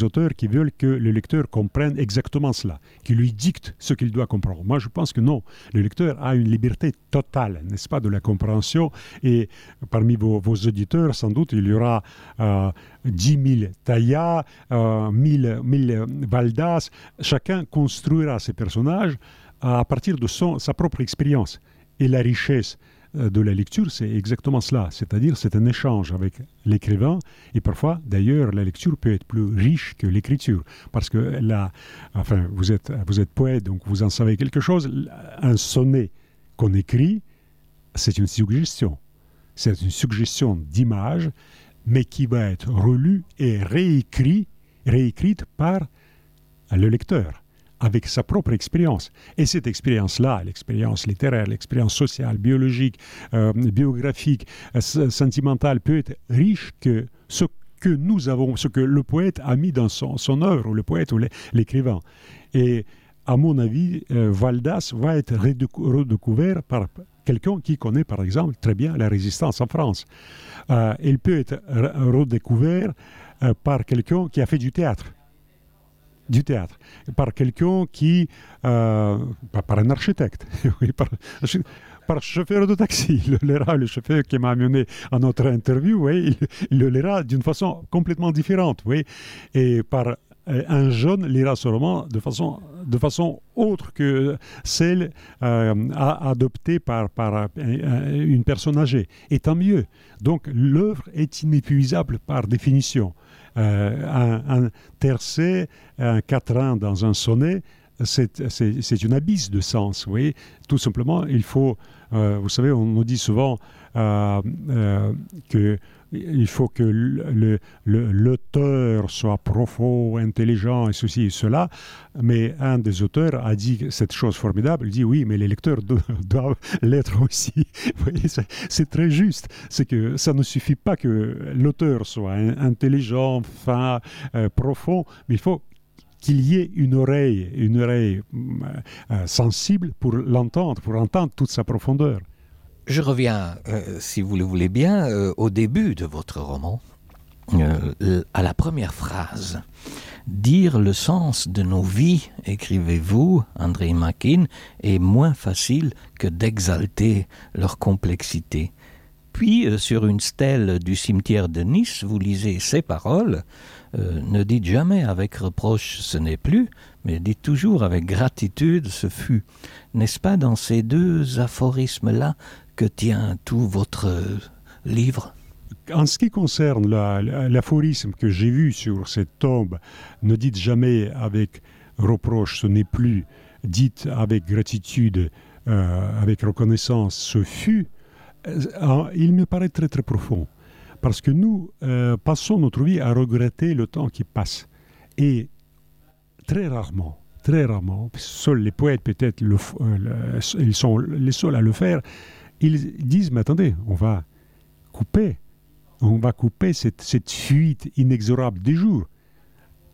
auteurs qui veulent que le lecteur comprenne exactement cela, qui lui dictent ce qu'il doit comprendre. Moi, je pense que non. Le lecteur a une liberté totale, n'est-ce pas, de la compréhension. Et parmi vos auditeurs, sans doute, il y aura 10 000 Taïa, 1000 Valdas. Chacun construira ses personnages à partir de sa propre expérience. Et la richesse de la lecture, c'est exactement cela. C'est-à-dire, c'est un échange avec l'écrivain. Et parfois, d'ailleurs, la lecture peut être plus riche que l'écriture. Parce que vous êtes poète, donc vous en savez quelque chose. Un sonnet qu'on écrit, c'est une suggestion. C'est une suggestion d'image, mais qui va être relue et réécrite par le lecteur, avec sa propre expérience. Et cette expérience-là, l'expérience littéraire, l'expérience sociale, biologique, biographique, sentimentale, peut être riche que ce que nous avons, ce que le poète a mis dans son œuvre, ou le poète ou l'écrivain. Et à mon avis, Valdas va être redécouvert par quelqu'un qui connaît, par exemple, très bien la résistance en France. Il peut être redécouvert par quelqu'un qui a fait du théâtre, par quelqu'un qui, par un architecte, oui, par chauffeur de taxi. Le chauffeur qui m'a amené à notre interview, oui, il le lira d'une façon complètement différente, oui, et par un jeune lira ce roman de façon autre que celle adoptée par une personne âgée. Et tant mieux. Donc l'œuvre est inépuisable par définition. Un tercet, un quatrain dans un sonnet, c'est une abysse de sens. Vous voyez, tout simplement, il faut... vous savez, on nous dit souvent qu'il faut que l'auteur soit profond, intelligent, et ceci et cela. Mais un des auteurs a dit cette chose formidable. Il dit oui, mais les lecteurs doivent l'être aussi. Vous voyez, c'est très juste. C'est que ça ne suffit pas que l'auteur soit intelligent, fin, profond, mais il faut qu'il y ait une oreille sensible pour l'entendre, pour entendre toute sa profondeur. Je reviens, si vous le voulez bien, au début de votre roman, à la première phrase. Dire le sens de nos vies, écrivez-vous, André Máquin, est moins facile que d'exalter leur complexité. Puis, sur une stèle du cimetière de Nice, vous lisez ces paroles. Ne dites jamais avec reproche ce n'est plus, mais dites toujours avec gratitude ce fut. N'est-ce pas dans ces deux aphorismes-là que tient tout votre livre? En ce qui concerne l'aphorisme que j'ai vu sur cette tombe, ne dites jamais avec reproche ce n'est plus, dites avec gratitude, avec reconnaissance ce fut, il me paraît très très profond. Parce que nous passons notre vie à regretter le temps qui passe. Et très rarement, seuls les poètes peut-être, ils sont les seuls à le faire, ils disent, mais attendez, on va couper cette fuite inexorable des jours.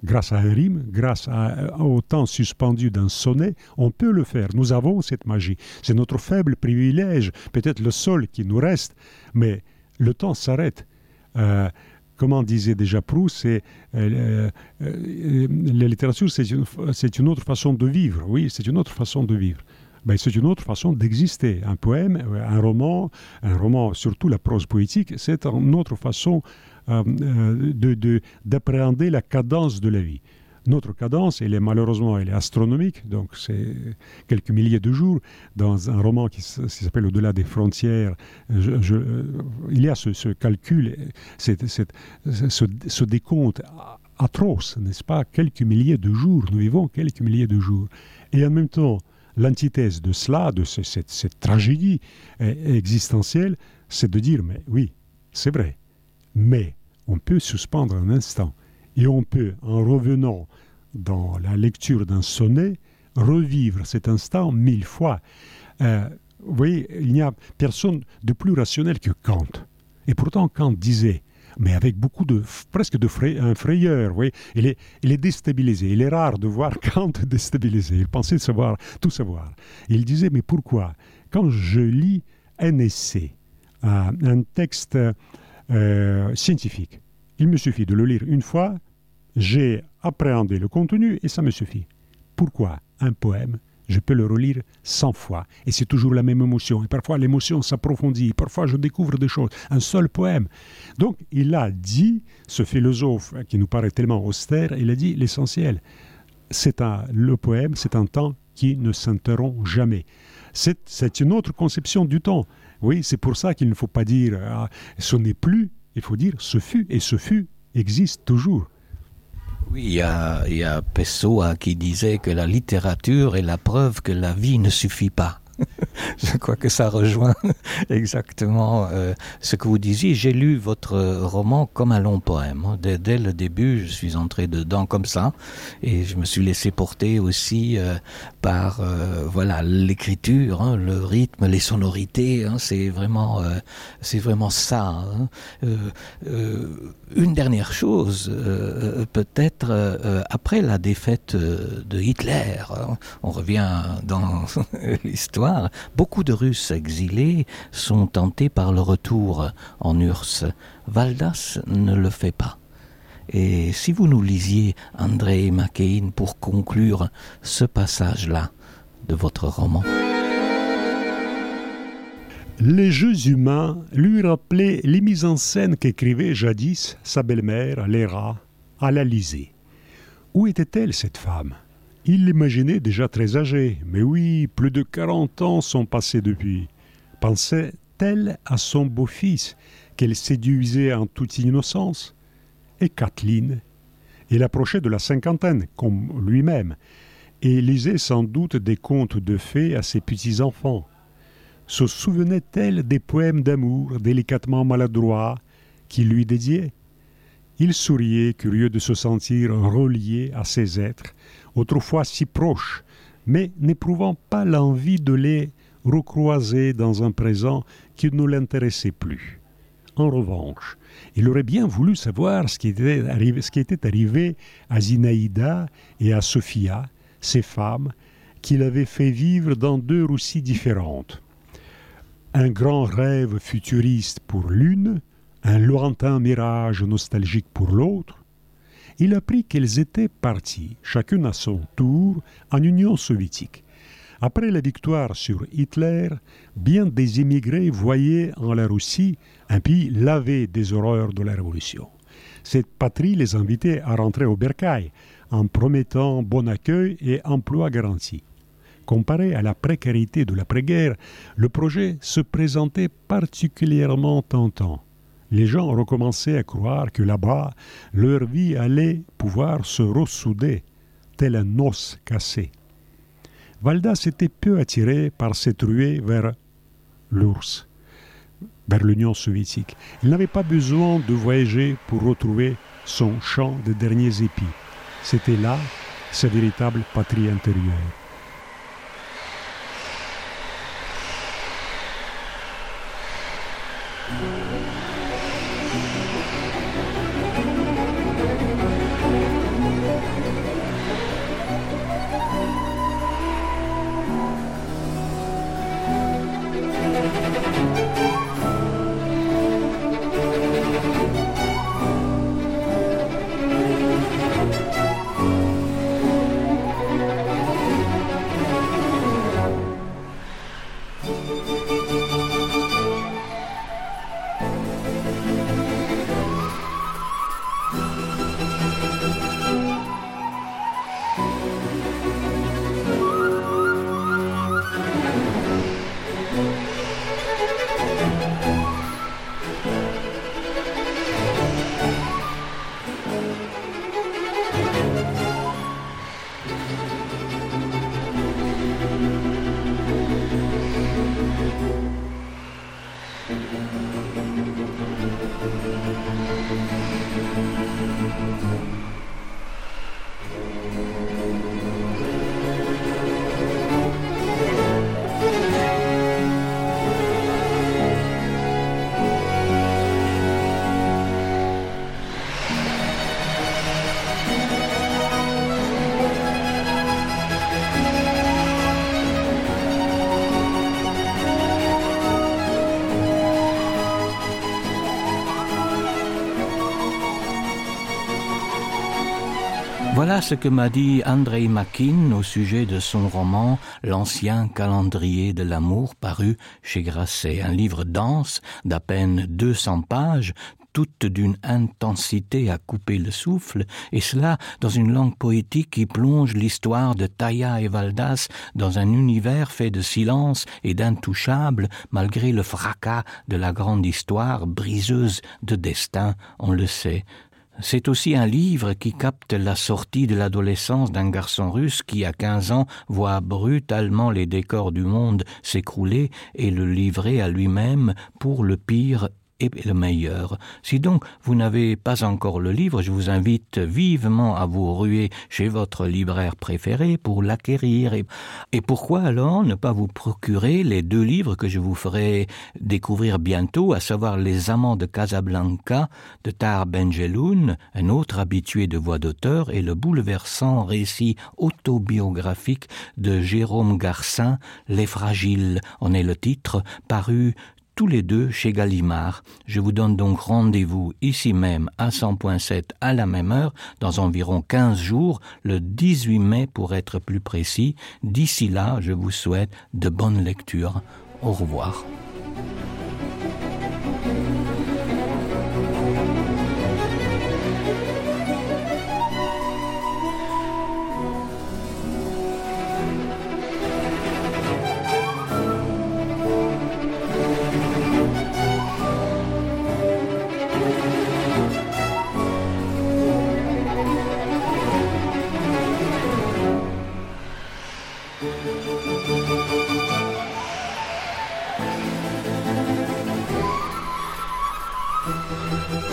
Grâce à un rime, grâce au temps suspendu d'un sonnet, on peut le faire. Nous avons cette magie. C'est notre faible privilège, peut-être le seul qui nous reste, mais le temps s'arrête. Comment disait déjà Proust, la littérature, c'est une autre façon de vivre. Oui, c'est une autre façon de vivre. Ben, c'est une autre façon d'exister. Un poème, un roman, surtout la prose poétique, c'est une autre façon d'appréhender la cadence de la vie. Notre cadence, elle est astronomique, donc c'est quelques milliers de jours. Dans un roman qui s'appelle Au-delà des frontières, il y a ce calcul, ce décompte atroce, n'est-ce pas? Quelques milliers de jours, nous vivons quelques milliers de jours. Et en même temps, l'antithèse de cela, de cette tragédie existentielle, c'est de dire, mais oui, c'est vrai, mais on peut suspendre un instant. Et on peut, en revenant dans la lecture d'un sonnet, revivre cet instant 1000 fois. Vous voyez, il n'y a personne de plus rationnel que Kant. Et pourtant, Kant disait, mais avec beaucoup presque de frayeur, vous voyez, il est déstabilisé. Il est rare de voir Kant déstabilisé. Il pensait tout savoir. Il disait, mais pourquoi? Quand je lis un essai, un texte scientifique, il me suffit de le lire une fois, j'ai appréhendé le contenu et ça me suffit. Pourquoi un poème, je peux le relire 100 fois et c'est toujours la même émotion. Et parfois l'émotion s'approfondit, parfois je découvre des choses. Un seul poème. Donc il a dit, ce philosophe qui nous paraît tellement austère, il a dit l'essentiel. Le poème, c'est un temps qui ne s'interrompt jamais. C'est une autre conception du temps. Oui, c'est pour ça qu'il ne faut pas dire ce n'est plus. Il faut dire ce fut, et ce fut existe toujours. Oui, il y a Pessoa qui disait que la littérature est la preuve que la vie ne suffit pas. Je crois que ça rejoint exactement ce que vous disiez. J'ai lu votre roman comme un long poème. Dès le début, je suis entré dedans comme ça et je me suis laissé porter aussi par l'écriture, le rythme, les sonorités. C'est vraiment ça. Une dernière chose, peut-être après la défaite de Hitler, on revient dans l'histoire. Beaucoup de Russes exilés sont tentés par le retour en URSS. Valdas ne le fait pas. Et si vous nous lisiez, André Máquin, pour conclure ce passage-là de votre roman. Les jeux humains lui rappelaient les mises en scène qu'écrivait jadis sa belle-mère, Léra, à l'Élysée. Où était-elle, cette femme? Il l'imaginait déjà très âgée, mais oui, plus de 40 ans sont passés depuis. Pensait-elle à son beau-fils, qu'elle séduisait en toute innocence? Et Kathleen? Elle approchait de la cinquantaine, comme lui-même, et lisait sans doute des contes de fées à ses petits-enfants. Se souvenait-elle des poèmes d'amour délicatement maladroits qu'il lui dédiait? Il souriait, curieux de se sentir relié à ces êtres, autrefois si proches, mais n'éprouvant pas l'envie de les recroiser dans un présent qui ne l'intéressait plus. En revanche, il aurait bien voulu savoir ce qui était arrivé à Zinaïda et à Sophia, ces femmes qu'il avait fait vivre dans 2 Russies différentes. Un grand rêve futuriste pour l'une, un lointain mirage nostalgique pour l'autre. Il apprit qu'elles étaient parties, chacune à son tour, en Union soviétique. Après la victoire sur Hitler, bien des immigrés voyaient en la Russie un pays lavé des horreurs de la Révolution. Cette patrie les invitait à rentrer au bercail, en promettant bon accueil et emploi garanti. Comparé à la précarité de l'après-guerre, le projet se présentait particulièrement tentant. Les gens recommençaient à croire que là-bas, leur vie allait pouvoir se ressouder, tel un os cassé. Valdas était peu attiré par cette ruée vers l'URSS, vers l'Union soviétique. Il n'avait pas besoin de voyager pour retrouver son champ de derniers épis. C'était là sa véritable patrie intérieure. Voilà ce que m'a dit Andrei Makin au sujet de son roman « L'ancien calendrier de l'amour » paru chez Grasset. Un livre dense d'à peine 200 pages, toute d'une intensité à couper le souffle, et cela dans une langue poétique qui plonge l'histoire de Taya et Valdas dans un univers fait de silence et d'intouchables, malgré le fracas de la grande histoire briseuse de destin, on le sait. C'est aussi un livre qui capte la sortie de l'adolescence d'un garçon russe qui, à 15 ans, voit brutalement les décors du monde s'écrouler et le livrer à lui-même pour le pire et le meilleur. Si donc vous n'avez pas encore le livre, je vous invite vivement à vous ruer chez votre libraire préféré pour l'acquérir. Et pourquoi alors ne pas vous procurer les 2 livres que je vous ferai découvrir bientôt, à savoir Les Amants de Casablanca de Tahar Benjeloun, un autre habitué de voix d'auteur, et le bouleversant récit autobiographique de Jérôme Garcin, Les Fragiles, en est le titre, paru tous les 2 chez Gallimard. Je vous donne donc rendez-vous ici même à 100.7 à la même heure, dans environ 15 jours, le 18 mai pour être plus précis. D'ici là, je vous souhaite de bonnes lectures. Au revoir. Musique